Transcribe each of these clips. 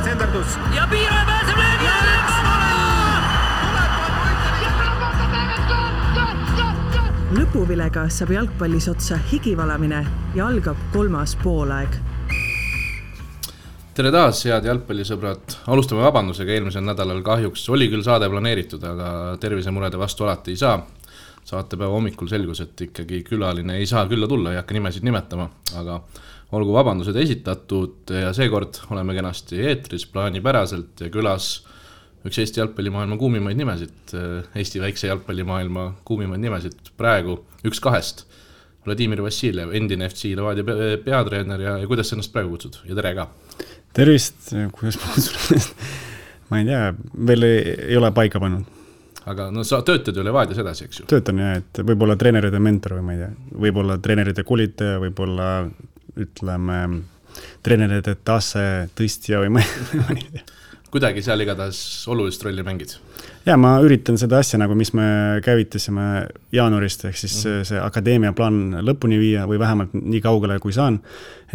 senderdus. Ja Piiraja pääseb löögi ja lõpuvilega saab jalgpallis otsa higivalamine ja algab 3. poolaeg. Tere taas, head jalgpallisõbrad. Alustame vabandusega, eelmisel nädalal kahjuks oli küll saade planeeritud, aga tervisemurede vastu alati ei saa. Saatepäeva hommikul selgus, et ikkagi külaline ei saa külla tulla, ei hakka nimesid nimetama, aga olgu vabandused esitatud ja seekord oleme kenasti eetris plaanipäraselt ja külas üks Eesti jalgpallimaailma kuumimaid nimesid, Eesti väikse jalgpallimaailma kuumimaid nimesid praegu üks kahest. Vladimir Vassiljev, endine FC Levadia peatreener ja kuidas sa ennast praegu kutsud? Ja tere ka! Tervist, kuidas ma kutsun? Ma ei tea, veel ei ole paika pannud. Aga no sa töötad ju Levadias edasi, eks ju? Töötan jah, et võib-olla treeneride mentor või ma ei tea. Võib-olla treeneride koolitaja, võib-olla ütleme treeneride tase tõstja või ma ei tea. Kuidagi seal igatahes olulist rolli mängid? Ja ma üritan seda asja, nagu mis me käivitasime jaanuarist, ehk siis see akadeemia plaan lõpuni viia või vähemalt nii kaugele kui saan,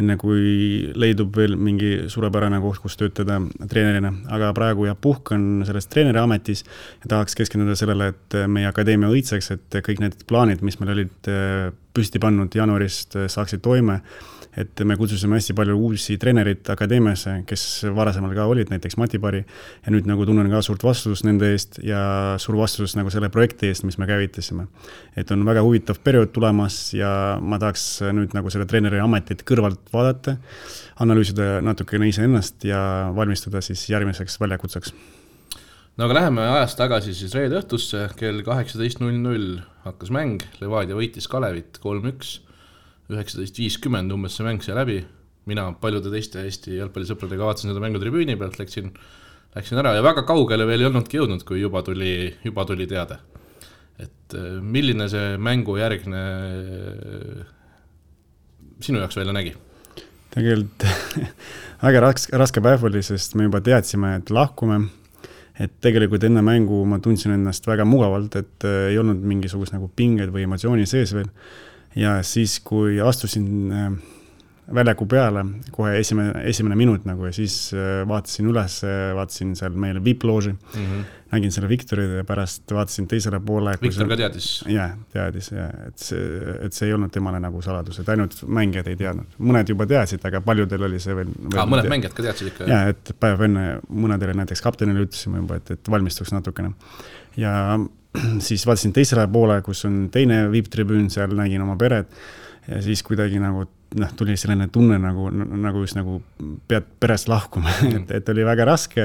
enne kui leidub veel mingi suurepärane koht, kus töötada treenerina. Aga praegu ja puhkan selles treeneri ametis ja tahaks keskenduda sellele, et meie akadeemia õitseks, et kõik need plaanid, mis meil olid püsti pannud jaanuarist, saaksid toime. Et me kutsusime hästi palju uusi treenerid akadeemiasse, kes varasemal ka olid, näiteks Mati Pari, ja nüüd nagu tunnen ka suurt vastutust nende eest ja suur vastutus nagu selle projekti eest, mis me käivitasime. Et on väga huvitav periood tulemas ja ma tahaks nüüd nagu selle treeneri ametit kõrvalt vaadata, analüüsida natukene iseennast ja valmistuda siis järgmiseks väljakutseks. No aga läheme ajast tagasi siis reede õhtusse, kell 18.00 hakkas mäng, Levadia võitis Kalevit 3-1. 19.50 umbes see mäng sai läbi. Mina paljude teiste Eesti jalgpallisõpradega vaatasin seda mängu tribüüni pealt, läksin ära ja väga kaugele veel ei olnudki jõudnud, kui juba tuli teade. Et milline see mängu järgne sinu jaoks välja nägi? Tegelikult väga raske päev oli, sest me juba teadsime, et lahkume. Et tegelikult enne mängu ma tundsin ennast väga mugavalt, et ei olnud mingisugust nagu pinged või emotsiooni sees veel. Ja siis, kui astusin väljaku peale, kohe esimene minut nagu, ja siis vaatasin üles, vaatasin seal meile VIP-looži, nägin selle Viktorid ja pärast vaatasin teisele poole. Viktor ka teadis? Jah, teadis, ja, et see ei olnud temale nagu saladus, et ainult mängijad ei teadnud. Mõned juba teadsid, aga paljudel oli see veel mõned mängijad ka teadsid ikka? Jah, et päev enne mõnedele näiteks kaptenile ütlesime juba, et valmistuks natukene. Ja siis vaatasin teisele poole, kus on teine VIP-tribüün, seal nägin oma peret ja siis kuidagi nagu tuli selline tunne nagu just nagu pead perest lahkuma, et oli väga raske,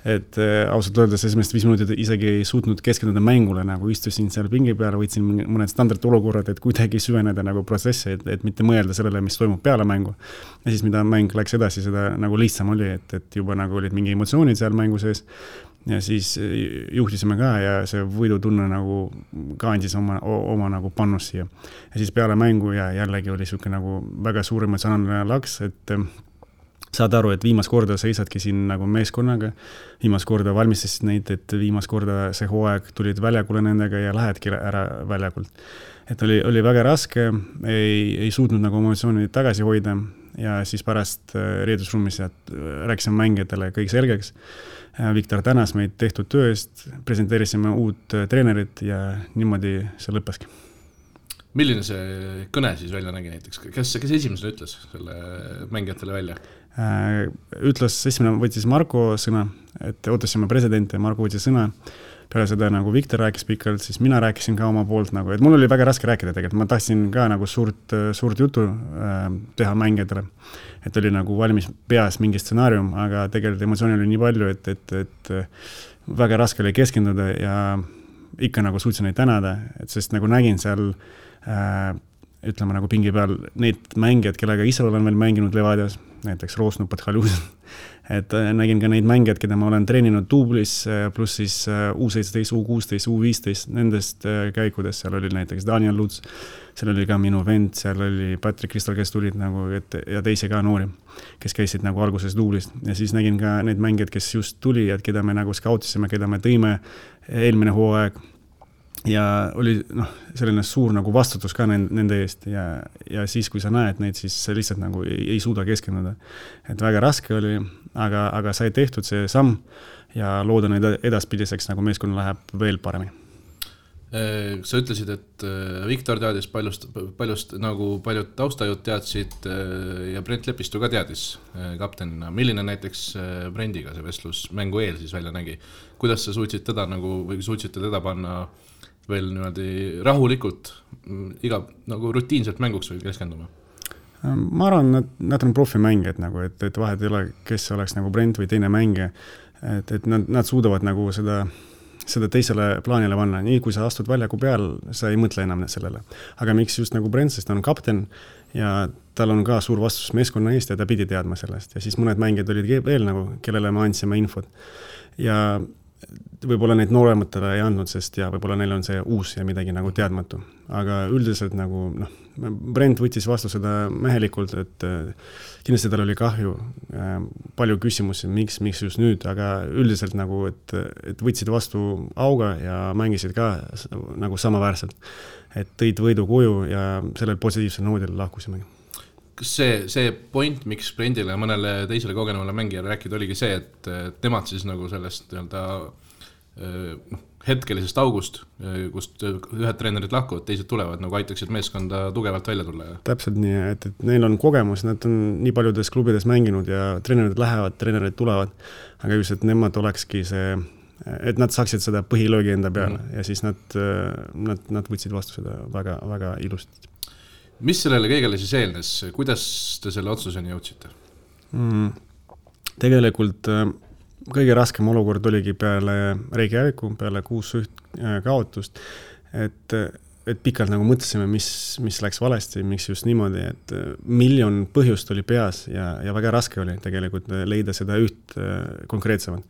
et ausalt öeldes esimest 5 minutit isegi ei suutnud keskenduda mängule, nagu istusin seal pingi peale, võtsin mõned standardolukorrad, et kuidagi süveneda nagu protsessi, et mitte mõelda sellele, mis toimub peale mängu. Ja siis mida mäng läks edasi, seda nagu lihtsam oli, et juba nagu olid mingi emotsioonid seal mängu sees. Ja siis juhtisime ka ja see võidutunne nagu ka andis oma nagu pannus siia. Ja siis peale mängu ja jällegi oli selline nagu väga suur emotsionaalne laks, et saad aru, et viimast korda seisadki siin nagu meeskonnaga, viimast korda valmistasid neid, et viimast korda see hooaeg tulid väljakule nendega ja lähedki ära väljakult. Et oli väga raske, ei suutnud nagu emotsioonid tagasi hoida ja siis pärast reedusruumis rääkisime mängijatele kõik selgeks. Viktor tänas meid tehtud töö eest, presenteerisime uut treenerit ja niimoodi see lõppeski. Milline see kõne siis välja nägi näiteks? Kes esimesena ütles selle mängijatele välja? Esimene võttis Marko sõna, et ootasime presidenti ja Marko võttis sõna. Peale seda nagu Viktor rääkis pikalt, siis mina rääkisin ka oma poolt nagu, et mul oli väga raske rääkida tegelikult. Ma tahtsin ka nagu suurt jutu teha mängijatele. Et oli nagu valmis peas mingi stsenaarium, aga tegelikult emotsiooni oli nii palju, et väga raske oli keskenduda ja ikka nagu suutsin neid tänada, et sest nagu nägin seal ütleme nagu pingi peal neid mängijad, kellega ise olen veel mänginud Levadias, näiteks Roosnu Pathalusen, et nägin ka neid mängijad, keda ma olen treeninud duublis, pluss siis U17, U16, U15, nendest käikudes, seal oli näiteks Daniel Luts, seal oli ka minu vend, seal oli Patrick Kristal, kes tulid nagu, ja teisi ka noori, kes käisid nagu alguses duublist. Ja siis nägin ka neid mängijad, kes just tuli, et keda me nagu skautisime, keda me tõime eelmine hooaeg. Ja oli selline suur nagu vastutus ka nende eest ja siis, kui sa näed neid, siis lihtsalt nagu ei suuda keskenduda. Et väga raske oli, aga sai tehtud see samm ja loodan edaspidiseks nagu meeskonna läheb veel paremini. Sa ütlesid, et Viktor teadis paljust nagu paljud taustajud teadsid ja Brent Lepistu ka teadis kaptenina. Milline näiteks Brendiga see vestlus mängu eel siis välja nägi? Kuidas sa suutsid teda nagu, või suutsite teda panna veel niimoodi rahulikult iga nagu rutiinselt mänguks või keskenduma? Ma arvan, nad on profimängijad nagu, et vahet ei ole, kes oleks nagu Brent või teine mängija, et nad suudavad nagu seda teisele plaanile panna. Nii kui sa astud väljaku peal, sa ei mõtle enam sellele. Aga miks just nagu Brent, sest ta on kapten ja tal on ka suur vastus meeskonna eest ja ta pidi teadma sellest. Ja siis mõned mängijad olid veel nagu, kellele me andsime infot. Ja võib-olla neid noorematele ei andnud, sest ja võib-olla neil on see uus ja midagi nagu teadmatu. Aga üldiselt nagu, Brent võttis vastu seda mehelikult, et kindlasti tal oli kahju, palju küsimusi, miks just nüüd, aga üldiselt nagu, et võtsid vastu auga ja mängisid ka nagu samaväärselt, et tõid võidu koju ja sellel positiivsel noodil lahkusime. Kas see point, miks Brendile ja mõnele teisele kogenevale mängijale rääkida, oligi see, et nemad siis nagu sellest hetkelisest august, kust ühed treenerid lahkuvad, teised tulevad, nagu aitaksid meeskonda tugevalt välja tulla? Täpselt nii, et neil on kogemus, nad on nii paljudes klubides mänginud ja treenerid lähevad, treenerid tulevad, aga just, et nemad olekski see, et nad saaksid seda põhilöögi enda peale ja siis nad võtsid vastu seda väga, väga ilusti. Mis sellele kõigele siis eelnes? Kuidas te selle otsuseni jõudsite? Tegelikult kõige raskem olukord oligi peale Reykjaviku, peale 6-1 kaotust, et pikalt nagu mõtlesime, mis läks valesti, miks just niimoodi, et miljon põhjust oli peas ja väga raske oli tegelikult leida seda üht konkreetsemat,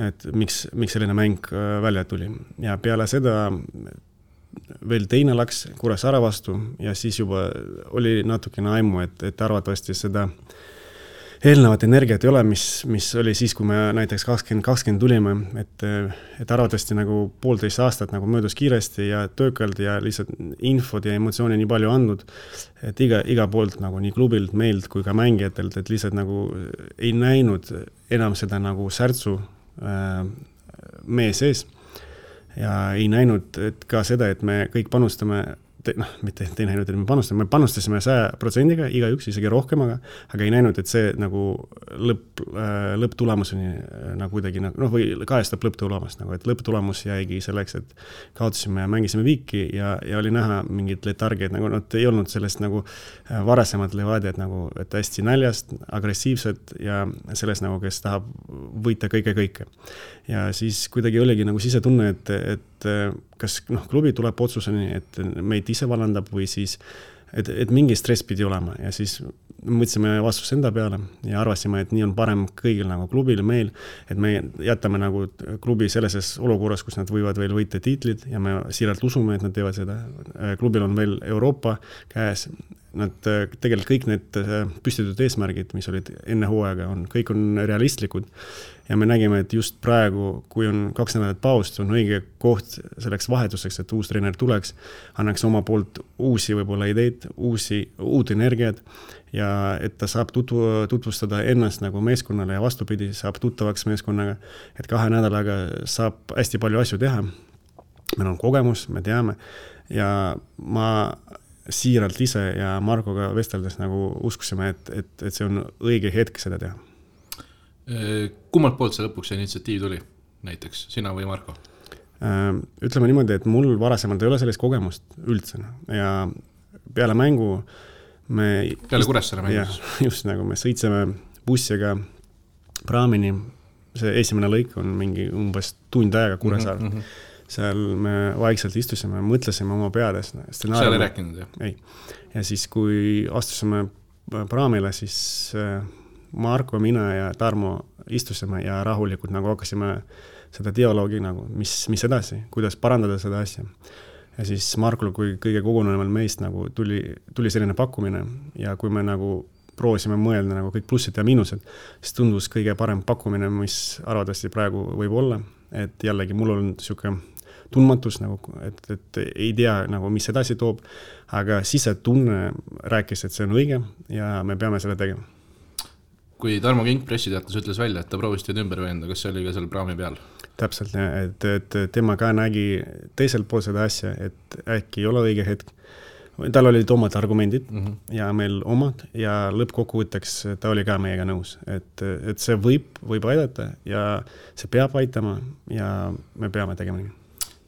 et miks selline mäng välja tuli. Ja peale seda veel teine läks Kuressaare vastu ja siis juba oli natukene aimu, et arvatavasti seda eelnevat energiat ei ole, mis oli siis, kui me näiteks 2020 tulime, et arvatavasti nagu 1,5 aastat nagu möödus kiiresti ja töökalt ja lihtsalt infot ja emotsiooni nii palju andnud, et iga poolt nagu nii klubilt, meilt kui ka mängijatelt, et lihtsalt nagu ei näinud enam seda nagu särtsu meie sees ja ei näinud et ka seda, et me kõik panustame mitte ei näinud, et me panustasime 100%-ga, igaüks isegi rohkemaga, aga ei näinud, et see nagu lõpptulemuseni nagu kuidagi, või kajastab lõpptulemust, nagu, et lõpptulemus jäigi selleks, et kaotasime ja mängisime viiki ja oli näha mingid letargid, nagu nad ei olnud sellest nagu varasemad levadjad, nagu, et hästi näljast, agressiivsed ja sellest nagu, kes tahab võita kõike. Ja siis kuidagi oligi nagu sisetunne, et kas klubi tuleb otsuseni, et meid ise vallandab või siis, et mingi stress pidi olema ja siis mõtlesime vastus enda peale ja arvasime, et nii on parem kõigil nagu klubil, meil, et me jätame nagu klubi sellises olukorras, kus nad võivad veel võita tiitlid ja me siiralt usume, et nad teevad seda. Klubil on veel Euroopa käes, nad tegelikult kõik need püstitud eesmärgid, mis olid enne hooaega, kõik on realistlikud ja me nägime, et just praegu, kui on 2 nädalat paust, on õige koht selleks vahetuseks, et uus treener tuleks, annaks oma poolt uusi võib-olla ideid, uut energiat ja et ta saab tutvustada ennast nagu meeskonnale ja vastupidi, saab tuttavaks meeskonnaga, et 2 nädalaga saab hästi palju asju teha. Meil on kogemus, me teame ja ma siiralt ise ja Markoga vesteldes nagu uskusime, et see on õige hetk seda teha. Kummalt poolt see lõpuks initsiatiiv tuli, näiteks sina või Marko? Ütleme niimoodi, et mul varasemalt ei ole sellist kogemust üldse ja peale mängu peale Kuressaare mängus? Just nagu me sõitsime bussiga praamini, see esimene lõik on mingi umbes tund aega Kuressaare. Seal me vaikselt istusime, mõtlesime oma peades. Seal ei rääkinud, jah? Ei. Ja siis, kui astusime praamile, siis Marko, mina ja Tarmo istusime ja rahulikult nagu hakkasime seda dialoogi, nagu, mis edasi, kuidas parandada seda asja. Ja siis Markul, kui kõige koguneval meist nagu tuli selline pakkumine ja kui me nagu proovisime mõelda nagu kõik plussid ja miinused, siis tundus kõige parem pakkumine, mis arvatavasti praegu võib olla, et jällegi mul on niisugune tundmatus, nagu, et ei tea, nagu, mis edasi toob, aga sisetunne rääkis, et see on õige ja me peame selle tegema. kui Tarmo Kink pressiteates ütles välja, et ta proovis teid ümber veenda, kas see oli ka seal praami peal? Täpselt, et tema ka nägi teiselt pool seda asja, et äkki ei ole õige hetk. Tal olid omad argumendid ja meil omad ja lõppkokkuvõtteks ta oli ka meiega nõus, et see võib aidata ja see peab aitama ja me peame tegema nii.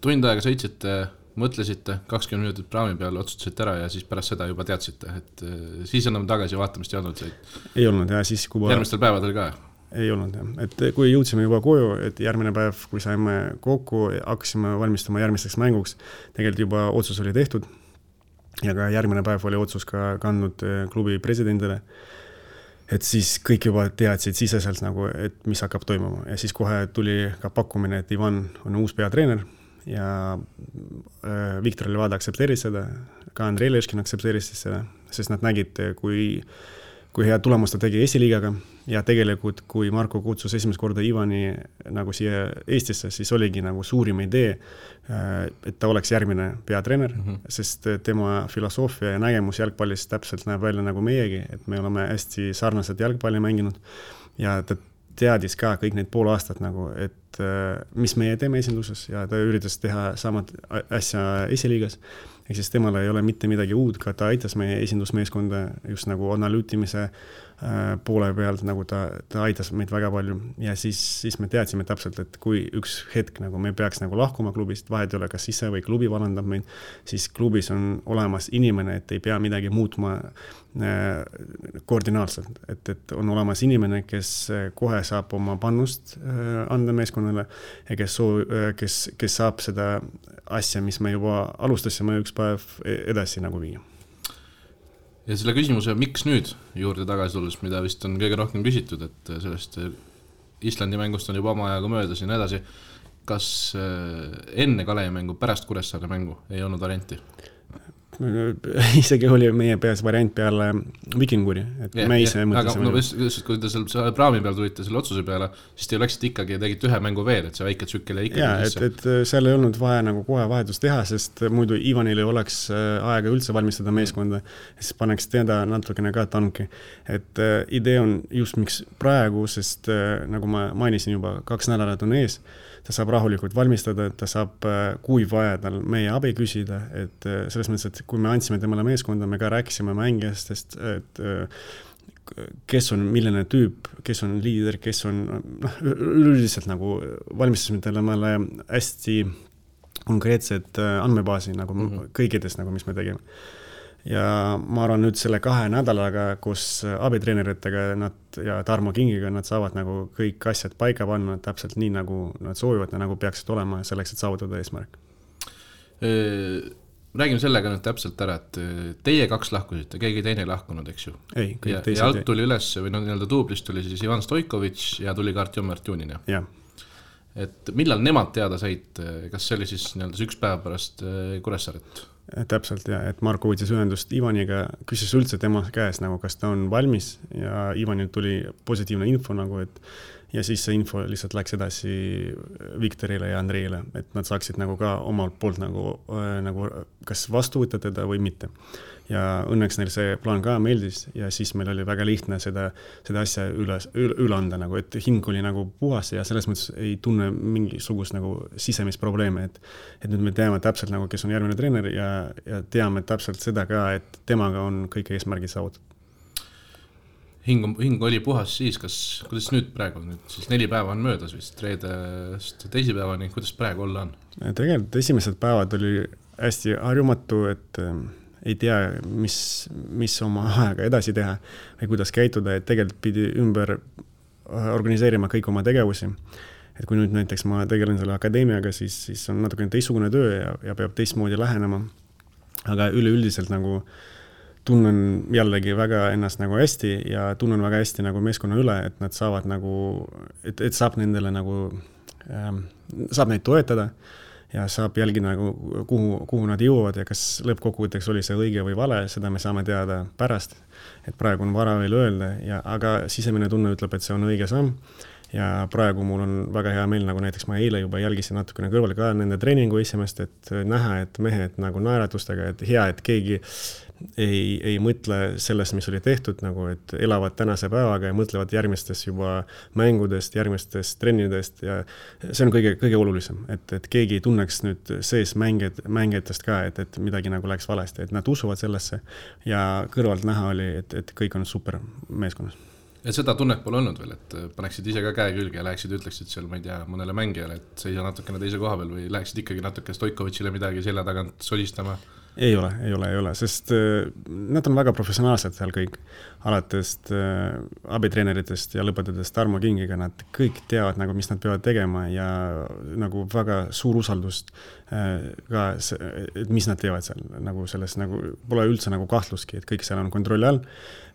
Tund aega sõitsite, mõtlesite, 20 minutit praami peal, otsustasite ära ja siis pärast seda juba teadsite, et siis enam tagasi vaatamist ei olnud said? Ei olnud ja siis kui järgmistel päevadel ka? Ei olnud jah, et kui jõudsime juba koju, et järgmine päev, kui saime kokku, hakkasime valmistama järgmisteks mänguks, tegelikult juba otsus oli tehtud ja ka järgmine päev oli otsus ka kandnud klubi presidendile, et siis kõik juba teadsid siseselt nagu, et mis hakkab toimuma ja siis kohe tuli ka pakkumine, et Ivan on uus peatreener ja Viktor Levada aktsepteeris seda, ka Andrei Leškin aktsepteeris seda, sest nad nägid, kui hea tulemust ta tegi esiliigaga ja tegelikult, kui Marko kutsus esimest korda Ivani nagu siia Eestisse, siis oligi nagu suurim idee, et ta oleks järgmine peatreener, sest tema filosoofia ja nägemus jalgpallis täpselt näeb välja nagu meiegi, et me oleme hästi sarnased jalgpalli mänginud ja ta teadis ka kõik need pool aastat nagu, et mis meie teeme esinduses ja ta üritas teha samad asja esiliigas. Ehk siis temal ei ole mitte midagi uud, ka ta aitas meie esindusmeeskonda just nagu analüütimise poole pealt, nagu ta aitas meid väga palju ja siis me teadsime täpselt, et kui üks hetk nagu me peaks nagu lahkuma klubist, vahet ei ole, kas ise või klubi vallandab meid, siis klubis on olemas inimene, et ei pea midagi muutma koordinaalselt, et on olemas inimene, kes kohe saab oma pannust anda meeskonnale ja kes saab seda asja, mis me juba alustasime üks päev edasi nagu viia. Ja selle küsimuse, miks nüüd juurde tagasi tulles, mida vist on kõige rohkem küsitud, et sellest Islandi mängust on juba oma ajaga möödas ja nii edasi, kas enne Kalevi mängu, pärast Kuressaare mängu ei olnud varianti? Isegi oli meie peas variant peale Vikinguri, et me ise mõtlesime. Aga kui te seal praami peal tulite selle otsuse peale, siis te läksite ikkagi ja tegite ühe mängu veel, et see väike tsükkel ja ikkagi sisse. Et seal ei olnud vaja nagu kohe vahetust teha, sest muidu Ivanil ei oleks aega üldse valmistada meeskonda, siis paneks teda natukene ka tanki. Et idee on just miks praegu, sest nagu ma mainisin juba, 2 nädalat on ees, ta saab rahulikult valmistada, ta saab, kui vaja tal meie abi küsida, et selles mõttes, et kui me andsime temale meeskonda, me ka rääkisime mängijastest, et kes on milline tüüp, kes on liider, kes on üldiselt nagu valmistasime temale hästi konkreetsed andmebaasi nagu kõikides, nagu mis me tegime. Ja ma arvan nüüd selle 2 nädalaga, kus abitreeneritega ja Tarmo Kingiga nad saavad nagu kõik asjad paika panna täpselt nii, nagu nad soovivad ja nagu peaksid olema selleks, et saavutada eesmärk. Räägime sellega nüüd täpselt ära, et teie 2 lahkusite, keegi teine ei lahkunud, eks ju? Ei, kõik teised. Ja alt tuli üles, või nii-öelda duublist tuli siis Ivan Stoikovitš ja tuli ka Artjom Artjunin. Jah. Et millal nemad teada said, kas see oli siis nii-öelda 1 päev pärast Kuressaaret? Täpselt ja, et Marko võttis ühendust Ivaniga, küsis üldse tema käes nagu, kas ta on valmis ja Ivanil tuli positiivne info nagu, et ja siis see info lihtsalt läks edasi Viktorile ja Andreile, et nad saaksid nagu ka omalt poolt nagu kas vastu võtta teda või mitte. Ja õnneks neil see plaan ka meeldis ja siis meil oli väga lihtne seda asja üle anda, nagu, et hing oli nagu puhas ja selles mõttes ei tunne mingisugust nagu sisemisprobleeme, et nüüd me teame täpselt nagu, kes on järgmine treener ja teame täpselt seda ka, et temaga on kõik eesmärgid saavutatud. Hing oli puhas siis, kuidas nüüd praegu on? Siis 4 päeva on möödas vist, reedest teisipäevani, kuidas praegu olla on? Tegelikult esimesed päevad oli hästi harjumatu, et ei tea, mis oma aega edasi teha või kuidas käituda, et tegelikult pidi ümber organiseerima kõik oma tegevusi. Et kui nüüd näiteks ma tegelen selle akadeemiaga, siis on natukene teistsugune töö ja peab teistmoodi lähenema. Aga üleüldiselt nagu tunnen jällegi väga ennast nagu hästi ja tunnen väga hästi nagu meeskonna üle, et nad saavad nagu, et saab nendele nagu, saab neid toetada ja saab jälgi nagu, kuhu nad jõuavad ja kas lõppkokkuvõtteks oli see õige või vale, seda me saame teada pärast, et praegu on vara veel öelda, aga sisemine tunne ütleb, et see on õige samm ja praegu mul on väga hea meel, nagu näiteks ma eile juba jälgisin natukene kõrval ka nende treeningu esimest, et näha, et mehed nagu naeratustega, et hea, et keegi ei mõtle sellest, mis oli tehtud, nagu et elavad tänase päevaga ja mõtlevad järgmistest juba mängudest, järgmistest trennidest ja see on kõige olulisem, et keegi ei tunneks nüüd sees mängijatest ka, et midagi nagu läks valesti, et nad usuvad sellesse ja kõrvalt näha oli, et kõik on super meeskonnas. Ja seda tunnet pole olnud veel, et paneksid ise ka käe külge ja läheksid ütleksid seal, ma ei tea, mõnele mängijale, et see ei saa natukene teise koha peal või läheksid ikkagi natuke Stoikovitšile midagi selja tagant solistama? Ei ole, sest nad on väga professionaalsed seal kõik, alates abitreeneritest ja lõpetades Tarmo Kingiga, nad kõik teavad, nagu, mis nad peavad tegema ja nagu väga suur usaldust ka, et mis nad teevad seal, nagu selles nagu, pole üldse nagu kahtluski, et kõik seal on kontrolli all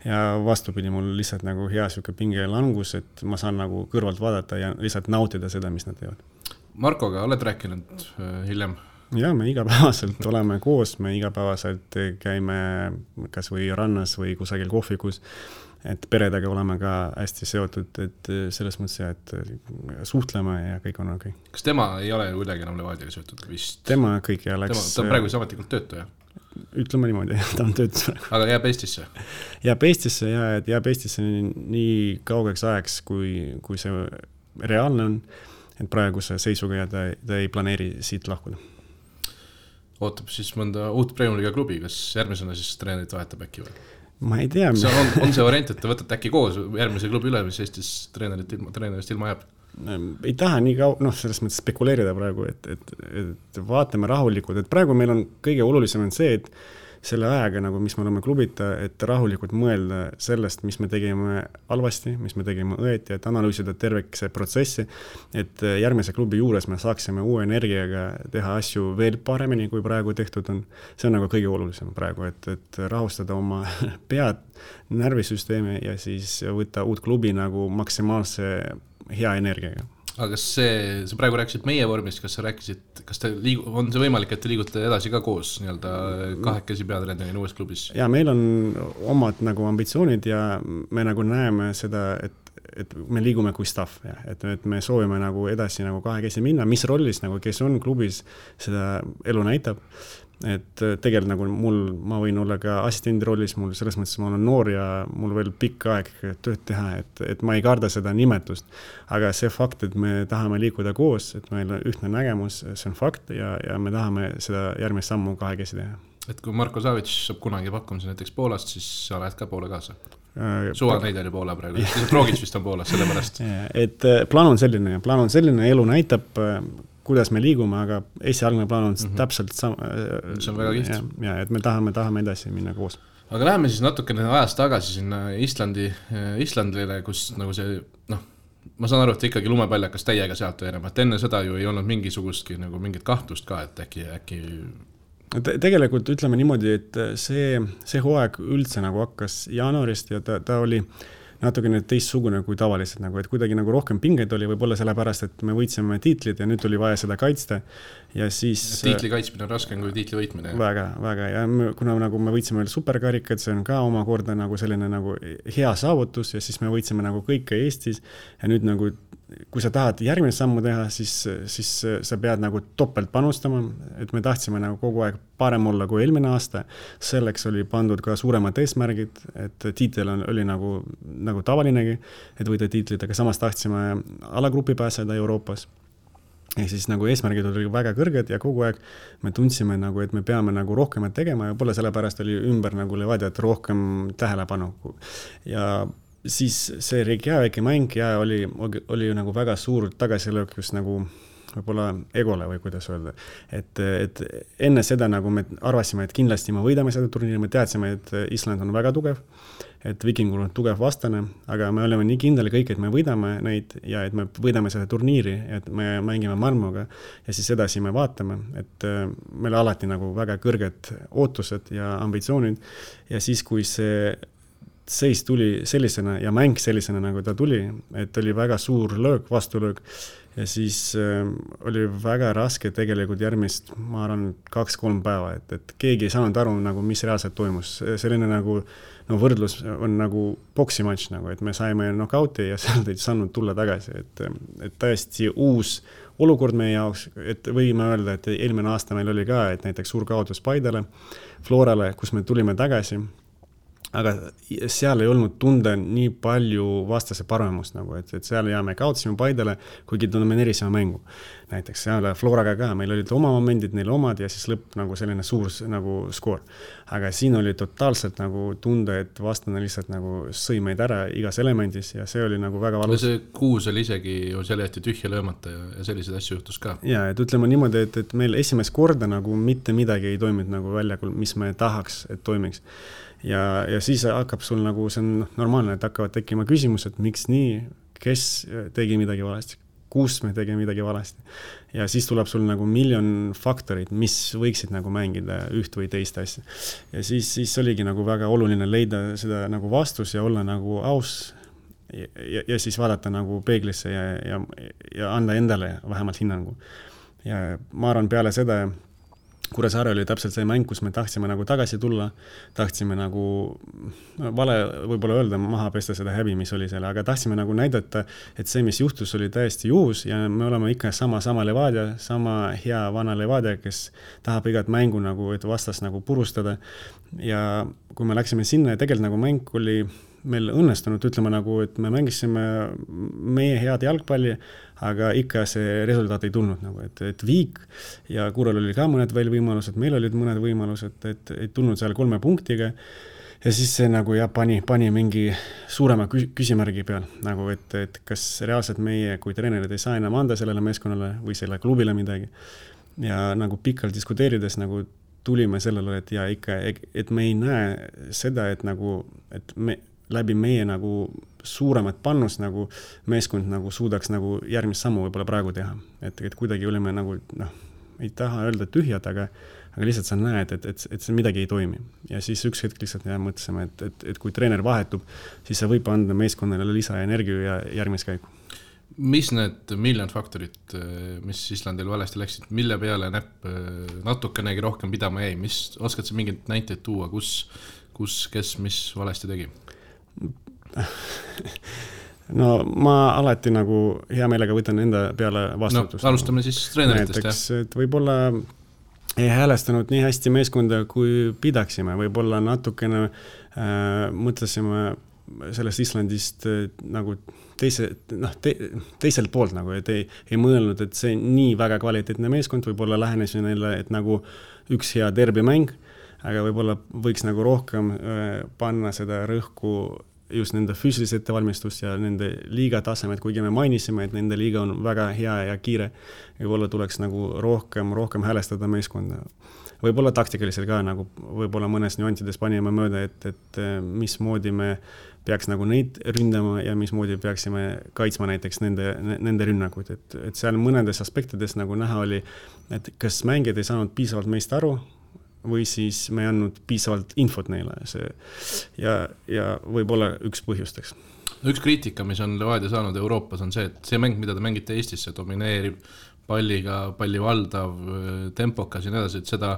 ja vastupidi, mul lihtsalt nagu hea siuke pinge langus, et ma saan nagu kõrvalt vaadata ja lihtsalt nautida seda, mis nad teevad. Markoga oled rääkinud hiljem? Ja me igapäevaselt oleme koos, me igapäevaselt käime kas või rannas või kusagil kohvikus, et peredega oleme ka hästi seotud, et selles mõttes, et suhtleme ja kõik on okei. Kas tema ei ole kuidagi enam Levadiaga seotud vist? Tema kõik ja läks... Ta on praegu ametlikult töötaja? Ütleme niimoodi, ta on töötus praegu. Aga jääb Eestisse? Jääb Eestisse nii kaugeks ajaks, kui see reaalne on, et praeguse seisuga ja ta ei planeeri siit lahkuda. Ootab siis mõnda uut Premium-liiga klubi, kas järgmisena siis treenerit vahetab äkki või? Ma ei tea. On see variant, et te võtate äkki koos järgmise klubi üle, mis Eestis treenerist ilma jääb? Ei taha nii selles mõttes spekuleerida praegu, et vaatame rahulikult, et praegu meil on kõige olulisem on see, et selle ajaga, nagu, mis me oleme klubita, et rahulikult mõelda sellest, mis me tegime halvasti, mis me tegime õeti, et analüüsida terveks protsessi, et järgmise klubi juures me saaksime uue energiaga teha asju veel paremini, kui praegu tehtud on. See on nagu kõige olulisem praegu, et rahustada oma pead, närvisüsteemi ja siis võtta uut klubi nagu maksimaalse hea energiaga. Aga kas sa praegu rääkisid meie vormist, kas sa rääkisid, on see võimalik, et te liigute edasi ka koos nii-öelda kahekesi peatreenerina uues klubis? Ja meil on omad nagu ambitsioonid ja me nagu näeme seda, et me liigume kui staff, ja, et me soovime nagu edasi nagu kahekesi minna, mis rollis nagu, kes on klubis, seda elu näitab. Et tegelikult nagu ma võin olla ka assistendi rollis, mul selles mõttes ma olen noor ja mul veel pikk aeg tööd teha, et ma ei karda seda nimetust, aga see fakt, et me tahame liikuda koos, et meil on ühtne nägemus, see on fakt ja me tahame seda järgmist sammu kahekesi teha. Et kui Marko Savic saab kunagi pakkumise näiteks Poolast, siis sa lähed ka Poole kaasa? Suva neid oli Poola praegu, Drogic vist on Poolas, sellepärast. Et plaan on selline, elu näitab, kuidas me liigume, aga esialgne plaan on täpselt sama. See on väga kiht. Ja, et me tahame edasi minna koos. Aga läheme siis natukene ajast tagasi sinna Islandile, kus nagu see, ma saan aru, et ikkagi lumepaljakas täiega sealt enam, et enne seda ju ei olnud mingisugustki nagu mingit kahtlust ka, et äkki... Tegelikult ütleme niimoodi, et see hooaeg üldse nagu hakkas jaanuarist ja ta oli natukene teistsugune kui tavaliselt, nagu, et kuidagi nagu rohkem pingeid oli võib-olla sellepärast, et me võitsime tiitlid ja nüüd oli vaja seda kaitsta ja siis... Tiitli kaitsmine on raskem kui tiitli võitmine. Väga ja kuna nagu me võitsime veel superkarikad, see on ka omakorda nagu selline nagu hea saavutus ja siis me võitsime nagu kõike Eestis ja nüüd nagu kui sa tahad järgmine sammu teha, siis sa pead nagu topelt panustama, et me tahtsime nagu kogu aeg parem olla kui eelmine aasta. Selleks oli pandud ka suuremad eesmärgid, et tiitel oli nagu tavalinegi, et võida tiitlid, aga samas tahtsime alagrupi pääseda Euroopas. Ja siis nagu eesmärgid oli väga kõrged ja kogu aeg me tundsime nagu, et me peame nagu rohkemat tegema ja pole sellepärast oli ümber nagu Levadiat rohkem tähelepanu. Ja siis see Reykjaviki mäng ja oli nagu väga suur tagasilöökus nagu võib-olla egole või kuidas öelda. Et enne seda nagu me arvasime, et kindlasti me võidame seda turniiri, me teadsime, et Island on väga tugev, et Vikingul on tugev vastane, aga me oleme nii kindel kõik, et me võidame neid ja et me võidame seda turniiri, et me mängime Malmöga ja siis edasi me vaatame, et meil alati nagu väga kõrged ootused ja ambitsioonid ja siis, kui see seis tuli sellisena ja mäng sellisena, nagu ta tuli, et oli väga suur löök, vastulöök ja siis oli väga raske tegelikult järgmist, ma arvan, 2-3 päeva, et keegi ei saanud aru, nagu, mis reaalselt toimus. Selline nagu, no võrdlus on nagu boksimatš, nagu, et me saime knockouti ja sealt ei saanud tulla tagasi, et täiesti uus olukord meie jaoks, et võime öelda, et eelmine aasta meil oli ka, et näiteks suur kaotus Paidele, Florale, kus me tulime tagasi, aga seal ei olnud tunda nii palju vastase paremust, nagu, et seal ja me kaotasime Paidele, kuigi domineerisime mängu. Näiteks seal Floraga ka, meil olid oma momendid, neil omad ja siis lõpp nagu selline suur nagu skoor. Aga siin oli totaalselt nagu tunda, et vastane lihtsalt nagu sõi meid ära igas elemendis ja see oli nagu väga valus. See kuus oli isegi ju selle jäeti tühja löömata ja selliseid asju juhtus ka. Ja, et ütleme niimoodi, et meil esimest korda nagu mitte midagi ei toiminud nagu väljakul, mis me tahaks, et toimiks. Ja siis hakkab sul nagu, see on normaalne, et hakkavad tekkima küsimused, miks nii, kes tegi midagi valesti, kus me tegi midagi valesti. Ja siis tuleb sul nagu miljon faktorid, mis võiksid nagu mängida üht või teist asja. Ja siis oligi nagu väga oluline leida seda nagu vastus ja olla nagu aus ja siis vaadata nagu peeglisse ja anda endale vähemalt hinnangu. Ja ma arvan peale seda, Kuressaare oli täpselt see mäng, kus me tahtsime nagu tagasi tulla, tahtsime nagu, vale võib-olla öelda, maha pesta seda häbi, mis oli selle, aga tahtsime nagu näidata, et see, mis juhtus, oli täiesti juhus ja me oleme ikka sama Levadia, sama hea vana Levadia, kes tahab igat mängu nagu, et vastas nagu purustada. Ja kui me läksime sinna ja tegelikult nagu mäng oli meil õnnestunud, ütleme nagu, et me mängisime meie head jalgpalli, aga ikka see resultaat ei tulnud nagu, et Viik ja Kurel oli ka mõned veel võimalused, meil olid mõned võimalused, et ei tulnud seal 3 punktiga ja siis see nagu pani mingi suurema küsimärgi peal, nagu et kas reaalselt meie kui treenerid ei saa enam anda sellele meeskonnale või selle klubile midagi ja nagu pikalt diskuteerides nagu tulime sellele, et ja ikka, et me ei näe seda, et nagu, et me läbi meie nagu suuremat pannust nagu meeskond nagu suudaks nagu järgmist sammu võib-olla praegu teha. Et kuidagi olime nagu, ei taha öelda tühjad, aga lihtsalt sa näed, et see midagi ei toimi. Ja siis üks hetk lihtsalt mõtlesime, et kui treener vahetub, siis see võib anda meeskonnale lisaenergia ja järgmist käiku. Mis need miljon faktorid, mis Islandil valesti läksid, mille peale näpp natukenegi rohkem pidama jäi? Oskad sa mingit näiteid tuua, kus kes mis valesti tegi? No ma alati nagu hea meelega võtan enda peale vastutust. No, alustame siis treeneritest. Näiteks, et võib-olla ei häälestanud nii hästi meeskonda, kui pidaksime. Võib-olla natukene mõtlesime sellest Islandist nagu teiselt poolt, nagu, et ei mõelnud, et see nii väga kvaliteetne meeskond, võib-olla lähenesin neile, et nagu üks hea derbimäng, aga võib-olla võiks nagu rohkem panna seda rõhku just nende füüsilise ettevalmistust ja nende liiga tasemed, kuigi me mainisime, et nende liiga on väga hea ja kiire. Võib-olla tuleks nagu rohkem häälestada meeskonda. Võib-olla taktikalisel ka, nagu võib-olla mõnes nüantides panime mööda, et mismoodi me peaks nagu neid ründama ja mismoodi peaksime kaitsma näiteks nende rünnakuid. Et seal mõnedes aspektides nagu näha oli, et kas mängijad ei saanud piisavalt meist aru, või siis me ei andnud piisavalt infot neile. Ja võib-olla üks põhjusteks. Üks kriitika, mis on Levadia saanud Euroopas, on see, et see mäng, mida te mängite Eestis, see domineerib palliga, palli valdav, tempokas ja nii edasi, et seda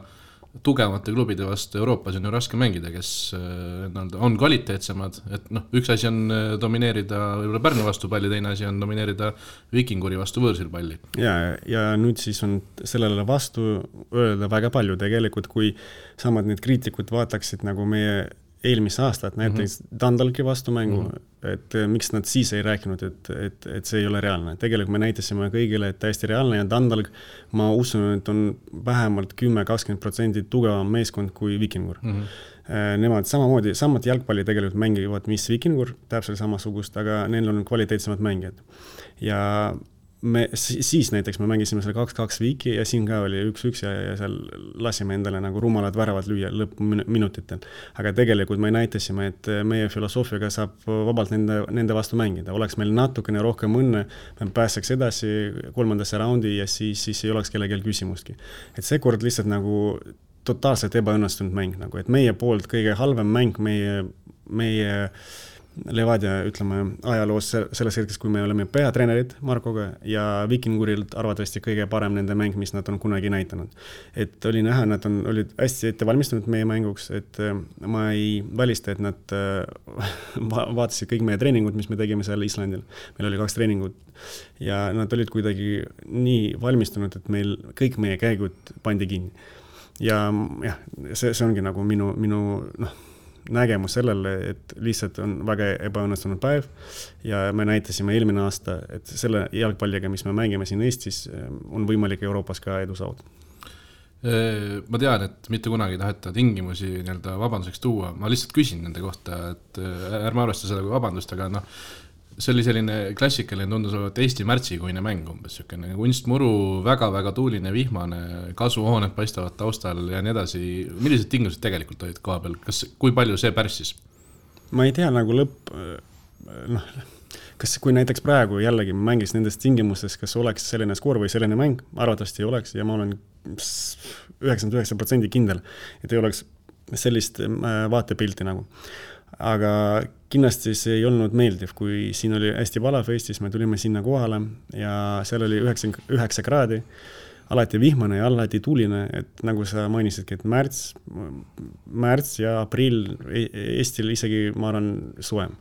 tugevamate klubide vastu Euroopas on ju raske mängida, kes on kvaliteetsemad, et üks asi on domineerida Pärnu vastu palli, teine asi on domineerida Vikinguri vastu võõrsil palli. Ja nüüd siis on sellele vastu öelda väga palju tegelikult, kui samad need kriitikud vaataksid nagu meie eelmise aastat, näiteks Dundalki vastu mängu, et miks nad siis ei rääkinud, et see ei ole reaalne. Tegelikult me näitasime kõigile, et täiesti reaalne ja Dundalk, ma usun, et on vähemalt 10-20% tugevam meeskond kui Vikingur. Nemad samamoodi, samad jalgpalli tegelikult mängivad, mis Vikingur, täpselt samasugust, aga neil on kvaliteetsemad mängijad. Ja siis näiteks me mängisime selle 2-2 Viiki ja siin ka oli 1-1 ja seal lasime endale nagu rumalad väravad lüüa lõppminutitel. Aga tegelikult me näitasime, et meie filosoofiaga saab vabalt nende vastu mängida. Oleks meil natukene rohkem õnne, me pääseks edasi 3. raundi ja siis ei oleks kellegel küsimustki. Et see kord lihtsalt nagu totaalselt ebaõnnestunud mäng nagu, et meie poolt kõige halvem mäng meie Levadia, ütleme, ajaloos selles hetkes, kui me oleme peatreenerid Markoga ja Vikingurilt arvatavasti kõige parem nende mäng, mis nad on kunagi näitanud. Et oli näha, nad olid hästi ette valmistunud meie mänguks, et ma ei välista, et nad vaatasid kõik meie treeningud, mis me tegime seal Islandil. Meil oli 2 treeningut ja nad olid kuidagi nii valmistunud, et meil kõik meie käigud pandi kinni. Ja see ongi nagu minu nägemus sellele, et lihtsalt on väga ebaõnnestunud päev ja me näitasime eelmine aasta, et selle jalgpalliga, mis me mängime siin Eestis, on võimalik Euroopas ka edu saada. Ma tean, et mitte kunagi ei taheta tingimusi nii-öelda vabanduseks tuua, ma lihtsalt küsin nende kohta, et ärme arvesta seda kui vabandust, aga see oli selline klassikaline, tundus olevat Eesti märtsikuine mäng umbes, selline kunstmuru, väga-väga tuuline, vihmane, kasvuhooned paistavad taustal ja nii edasi. Millised tingimused tegelikult olid koha peal? Kui palju see pärssis? Ma ei tea nagu kas kui näiteks praegu jällegi mängis nendest tingimustes, kas oleks selline skoor või selline mäng, arvatavasti ei oleks ja ma olen 99% kindel, et ei oleks sellist vaatepilti nagu. Aga kindlasti see ei olnud meeldiv, kui siin oli hästi valav Eestis, me tulime sinna kohale ja seal oli 9 kraadi, alati vihmane ja alati tuuline, et nagu sa mainisidki, et märts ja aprill Eestil isegi, ma arvan, suem.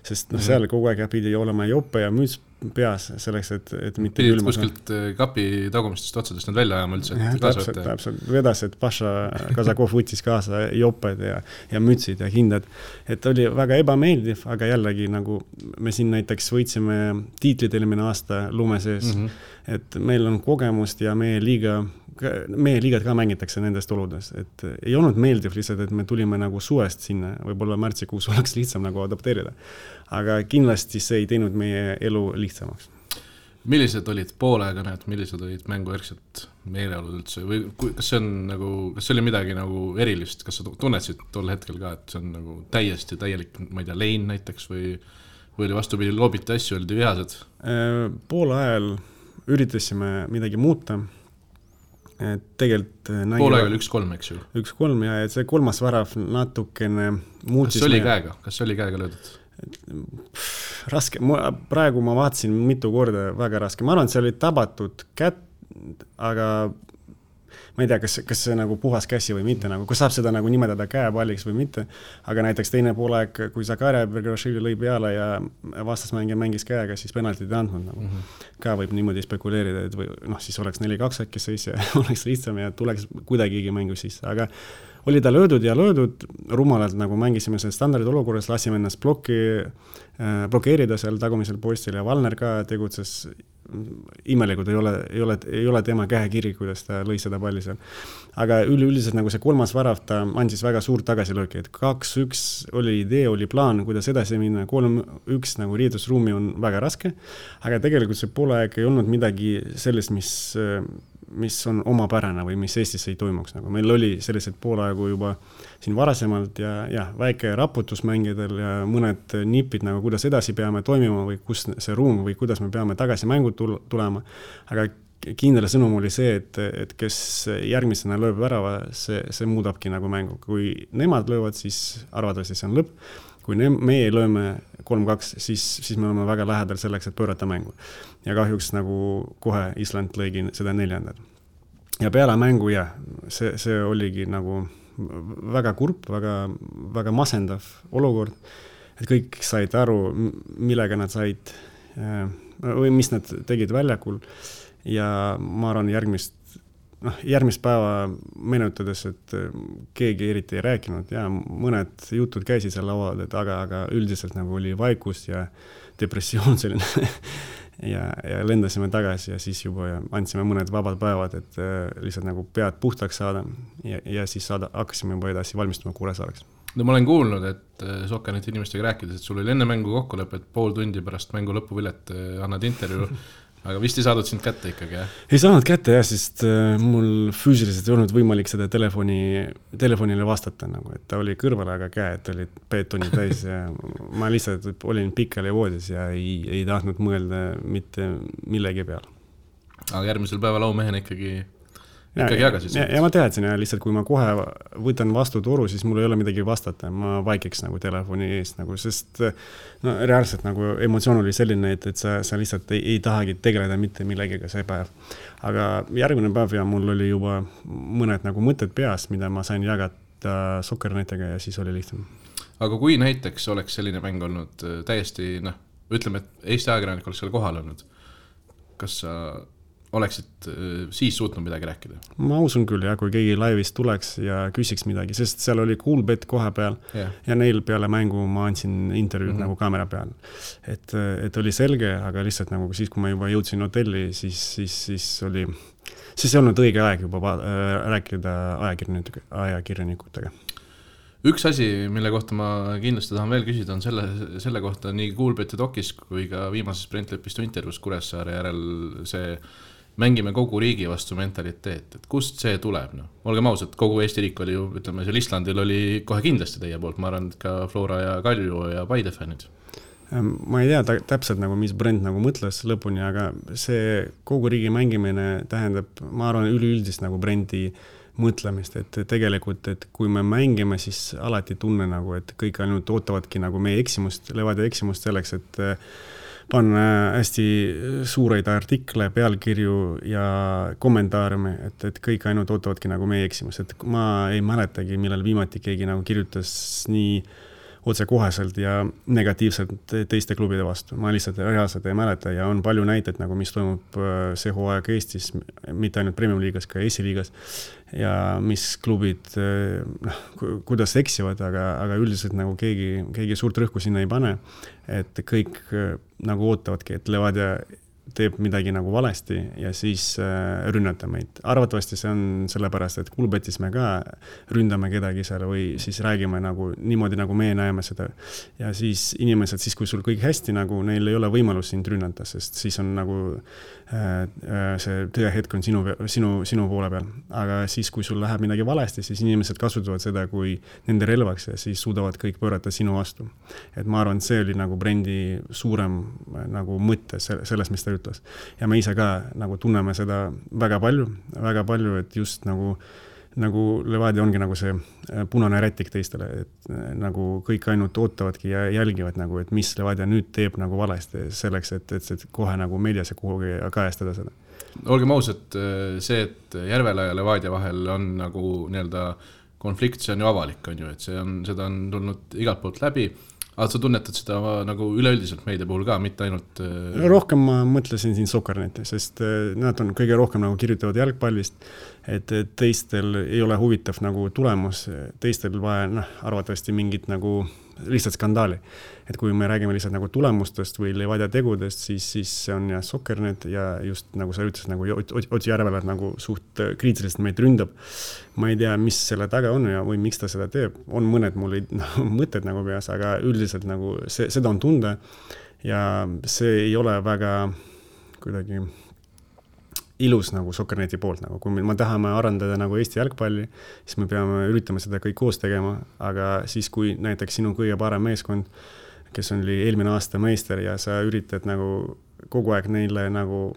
Sest seal kogu aeg pidi olema jope ja müts peas selleks, et mitte pidid kuskilt kapi tagumistest otsadest nad välja ajama üldse. Täpselt, vedas, et Paša Kazakov võttis kaasa joped ja mütsid ja hindad. Et oli väga ebameeldiv, aga jällegi nagu me siin näiteks võitsime tiitlid eelmine aasta lume sees, et meil on kogemust ja meie liigad ka mängitakse nendest oludes, et ei olnud meeldiv lihtsalt, et me tulime nagu suvest sinna, võib-olla märtsikuus oleks lihtsam nagu adapteerida, aga kindlasti see ei teinud meie elu lihtsamaks. Millised olid poolaega näed, millised olid mängujärgselt meeleolud üldse või kas see oli midagi nagu erilist, kas sa tunnetsid tol hetkel ka, et see on nagu täiesti täielik, ma ei tea, lein näiteks või oli vastupidi loobiti asju, oldi vihased? Poole ajal üritasime midagi muuta. Tegelikult poolaega oli 1-3, eks ju? 1-3 ja see kolmas värav natukene muutis. Kas oli käega löödud? Raske. Praegu ma vaatasin mitu korda väga raske. Ma arvan, et see oli tabatud kätt, aga ma ei tea, kas see nagu puhas käsi või mitte, nagu, kas saab seda nagu nimetada käepalliks või mitte, aga näiteks teine poolaeg, kui Zakaria Bergashvili lõi peale ja vastasmängija mängis käega, siis penaltit ei andnud. Nagu. Ka võib niimoodi spekuleerida, et või, siis oleks 4-2 äkki seis ja oleks lihtsam ja tuleks kuidagigi mängu sisse, aga oli ta löödud ja löödud, rumalalt nagu mängisime selle standardid olukorras, lasime ennast blokeerida seal tagumisel postil ja Valner ka tegutses imelikult, ei ole tema käekiri, kuidas ta lõi seda palli seal. Aga üleüldiselt nagu see kolmas värav, ta andis väga suurt tagasilööki, et 2-1 oli idee, oli plaan, kuidas edasi minna, 3-1 nagu riidusruumi on väga raske, aga tegelikult see poolaeg ei olnud midagi sellest, mis on omapärane või mis Eestis ei toimuks. Nagu meil oli sellised poolaegu juba siin varasemalt ja väike raputus mängidel ja mõned nipid, nagu kuidas edasi peame toimima või kus see ruum või kuidas me peame tagasi mängu tulema. Aga kindel sõnum oli see, et kes järgmisena lööb värava, see muudabki nagu mängu. Kui nemad löövad, siis arvatavasti see on lõpp. Kui meie lööme 3-2, siis me oleme väga lähedal selleks, et pöörata mängu. Ja kahjuks nagu kohe Island lõigi seda 4. Ja peale mängu, see oligi nagu väga kurb, väga masendav olukord, et kõik said aru, millega nad said või mis nad tegid väljakul ja ma arvan järgmist päeva menutades, et keegi eriti ei rääkinud ja mõned jutud käisid seal laual, aga üldiselt nagu oli vaikus ja depressioon selline ja lendasime tagasi ja siis juba andsime mõned vabad päevad, et lihtsalt nagu pead puhtaks saada ja siis hakkasime juba edasi valmistuma Kuressaareks. No ma olen kuulnud, et Sokkaneti inimestega rääkides, et sul oli enne mängu kokkulepe, et pool tundi pärast mängu lõpuvilet annad intervjuu aga vist ei saadud sind kätte ikkagi, jah? Ei saanud kätte, jah, sest mul füüsiliselt ei olnud võimalik seda telefonile vastata, nagu, et ta oli kõrval, aga käed olid beetoni täis ja ma lihtsalt olin pikali voodis ja ei tahtnud mõelda mitte millegi peale. Aga järgmisel päeval aumehena ikkagi ikkagi jagasid seda. Ja ma teadsin ja lihtsalt, kui ma kohe võtan vastu toru, siis mul ei ole midagi vastata, ma vaikiks nagu telefoni eest, nagu, sest no, reaalselt nagu emotsioon oli selline, et sa lihtsalt ei tahagi tegeleda mitte millegiga see päev. Aga järgmine päev ja mul oli juba mõned nagu mõtted peas, mida ma sain jagada Sokkernetega ja siis oli lihtsam. Aga kui näiteks oleks selline mäng olnud täiesti, ütleme, et Eesti ajakirjanik oleks seal kohal olnud, kas sa oleksid siis suutnud midagi rääkida? Ma usun küll, ja kui keegi laivist tuleks ja küsiks midagi, sest seal oli Coolbet koha peal ja neil peale mängu ma andsin intervjuud nagu kaamera peal. Et oli selge, aga lihtsalt nagu siis, kui ma juba jõudsin hotelli, siis ei olnud õige aeg juba rääkida ajakirjanikutega. Üks asi, mille kohta ma kindlasti tahan veel küsida, on selle kohta nii Coolbeti dokis kui ka viimases Brentlepistu intervjuus Kuressaare järel see mängime kogu riigi vastu mentaliteet, et kust see tuleb? Olgem ausad, kogu Eesti riik oli ju, ütleme, seal Islandil oli kohe kindlasti teie poolt, ma arvan, ka Flora ja Kalju ja Paide fännid. Ma ei tea täpselt, nagu, mis Brent nagu mõtles lõpuni, aga see kogu riigi mängimine tähendab, ma arvan, üleüldist nagu Brenti mõtlemist, et tegelikult, et kui me mängime, siis alati tunne nagu, et kõik ainult ootavadki nagu meie eksimust, Levadia eksimust selleks, et panna hästi suureid artikle, pealkirju ja kommentaarime, et kõik ainult ootavadki nagu meie eksimust, et ma ei mäletagi, millal viimati keegi nagu kirjutas nii otsekoheselt ja negatiivselt teiste klubide vastu. Ma lihtsalt reaalselt ei mäleta ja on palju näiteid, nagu mis toimub see hooaeg Eestis, mitte ainult Premium liigas, ka Eesti liigas ja mis klubid, kuidas eksivad, aga üldiselt nagu keegi suurt rõhku sinna ei pane, et kõik nagu ootavadki, et Levadia teeb midagi nagu valesti ja siis rünnata meid. Arvatavasti see on sellepärast, et Coolbetis me ka ründame kedagi seal või siis räägime nagu niimoodi, nagu me näeme seda. Ja siis inimesed, siis kui sul kõik hästi, nagu neil ei ole võimalus sind rünnata, sest siis on nagu see tõehetk on sinu poole peal. Aga siis, kui sul läheb midagi valesti, siis inimesed kasutavad seda kui nende relvaks ja siis suudavad kõik pöörata sinu vastu. Et ma arvan, see oli nagu Brendi suurem nagu mõtte selles, mis ta ütles. Ja me ise ka nagu tunneme seda väga palju, et just nagu Levadia ongi nagu see punane rätik teistele, et nagu kõik ainult ootavadki ja jälgivad nagu, et mis Levadia nüüd teeb nagu valesti selleks, et kohe nagu meedias ja kuhugi kajastada seda. Olgem ausad, see, et Järvela ja Levadia vahel on nagu nii-öelda konflikt, see on ju avalik, on ju, et seda on tulnud igalt poolt läbi. Aga sa tunnetad seda nagu üleüldiselt meedia puhul ka, mitte ainult... Rohkem ma mõtlesin siin Sokkerneti, sest nad on kõige rohkem nagu kirjutavad jalgpallist, et teistel ei ole huvitav nagu tulemus, teistel vaja arvatavasti mingit nagu lihtsalt skandaali. Et kui me räägime lihtsalt nagu tulemustest või Levadia tegudest, siis see on ja Sokkernet ja just nagu sa ütles, nagu Otsi Järvela nagu suht kriitiliselt meid ründab. Ma ei tea, mis selle taga on ja või miks ta seda teeb. On mõned mul mõtted nagu peas, aga üldiselt nagu seda on tunda ja see ei ole väga kuidagi ilus nagu Sokkerneti poolt, nagu kui me tahame arendada nagu Eesti jalgpalli, siis me peame üritama seda kõik koos tegema, aga siis kui näiteks sinu kõige parem meeskond, kes oli eelmine aasta meister ja sa üritad nagu kogu aeg neile nagu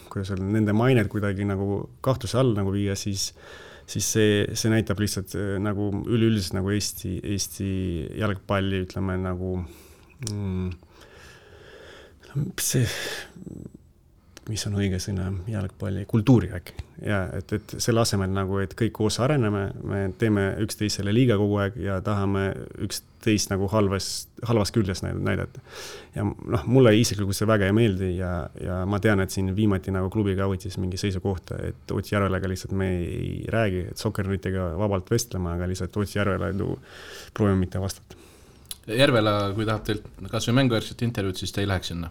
kuidas öelda, nende mained kuidagi nagu kahtluse all nagu viia, siis see näitab lihtsalt nagu üleüldiselt nagu Eesti jalgpalli, ütleme nagu see mis on õige sõna, jalgpalli, kultuuri äkki. Ja, et selle asemel nagu, et kõik koos areneme, me teeme üksteisele liiga kogu aeg ja tahame üksteist nagu halvas küljes näidata. Ja mulle isiklikult see väga ei meeldi ja ma tean, et siin viimati nagu klubiga võttis mingi seisukohta, et Otsi Järvelega lihtsalt me ei räägi, et Sokkernetiga vabalt vestlema, aga lihtsalt Otsi Järvela proovime mitte vastata. Järvela, kui tahab teilt kas või mänguvärset intervjuud, siis te ei läheks sinna?